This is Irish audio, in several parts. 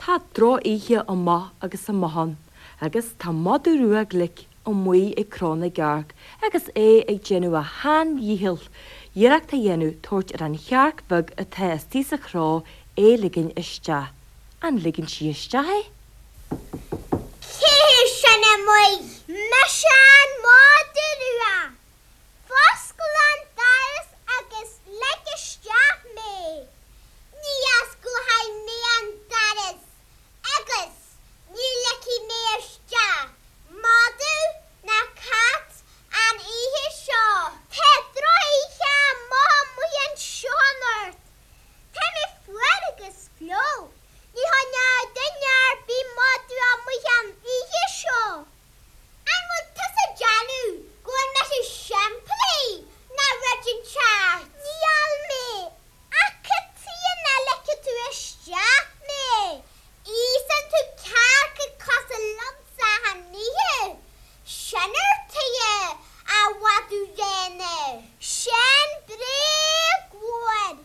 Tá drochoíche amach agus amach ann agus tá madadh rua glic amuigh ag cró na gcearc agus é ag déanamh a shean-dhícheall iarracht a dhéanamh tabhairt ar an chearc bheag atá istigh sa chró é ligean isteach. An ligeann sí isteach é? Cé hé sin amuigh? Mise an madadh rua. Foscail an doras agus lig isteach mé. Ní osclóidh mé an doras agus ní ligfidh mé isteach madadh ná cat an oíche seo. Tá drochoíche amach amuigh anseo anocht. Tá mé fuar agus fliuch. Ní choinneoidh duine ar bith madadh amuigh an oíche seo. An bhfuil tusa ag déanamh go bhfuil mise simplí ná rud inteacht? Níl mé, ach cad tuighe nach ligfidh tú isteach mé? Íosann tú cearca cosúil liomsa achan oíche. Sin ar tuighe, a mhadaidh bhréana. Sin bréag mhór.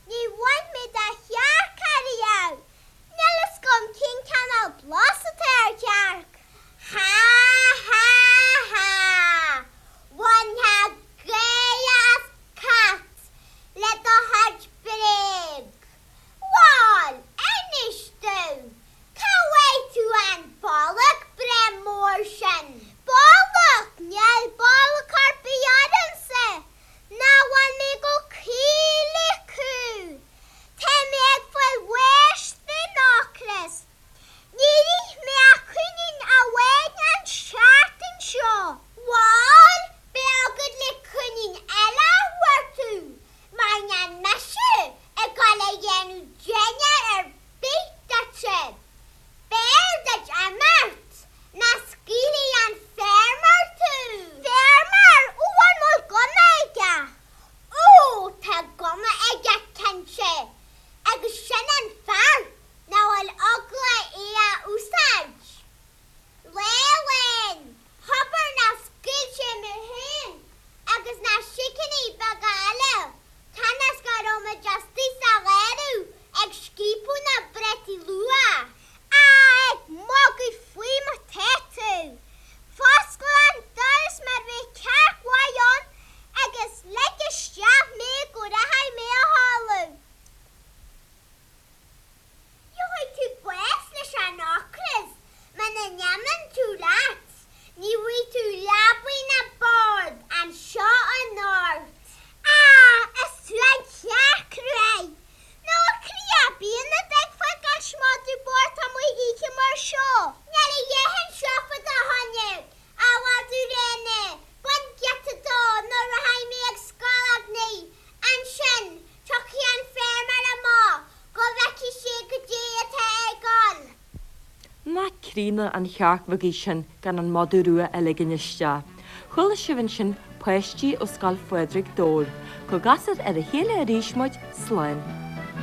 Ní bhain mé de chearc ariamh. Níl fhios agam cén cineál blas atá ar chearc. Há há há! Bhainfeá gáire as cat le do chuid bréag. Bhal, inis domh, cá bhfuair tú an bolg breá mór sin? Bolg? Níl bolg ar bith ormsa! Nach bhfuil mé chomh caoch le cú? Tá mé ag fáil bháis den ocras. Níor ith mé ach coinín amháin an tseachtain seo. Bhal, beidh agat le coinín eile a chuartú, mar níl mise ag dul a dhéanamh dinnéar ar bith duitse. B'fhearr duit imeacht ná scaoilfidh an feirmeoir tú. Feirmeoir? Ó, an bhfuil gunna aige? Ó, tá gunna aige cinnte, agus sin an fear nach bhfuil eagla é a úsáid. Lá amháin, abair nár scaoil sé mé féin agus na sicíní beaga eile cionn is go raibh muid istigh sa gharradh ag scaipeadh na bpréataí luath. Á, ag magadh faoi atá tú! Foscail an doras mar bheadh cearc mhaith ann agus lig isteach mé go rachaidh mé a chodladh. Gheobhaidh tú bás leis an ocras muna n-imíonn tú leat, ní bhfaighidh tú leabaidh ná bord anseo anocht. Á, is tú an chearc ruaidh! Nó a chroí ar bith ina dtuigfeá gan madadh bocht amuigh oíche mar seo. Níl a dhath anseo fá do choinne, a mhadaidh bhréana, bain giota dó nó rachaidh mé ag scológnaigh, ansin tiocfaidh an feirmeoir amach go bhfeicfidh sé goidé atá ar gcul. Nach críonna an chearc bheag í sin gan an madadh rua a ligean isteach. Chuala sibh ansin páistí ó Scoil Phádraig Dobhair. Go gcasfar ar a chéile arís muid, slán.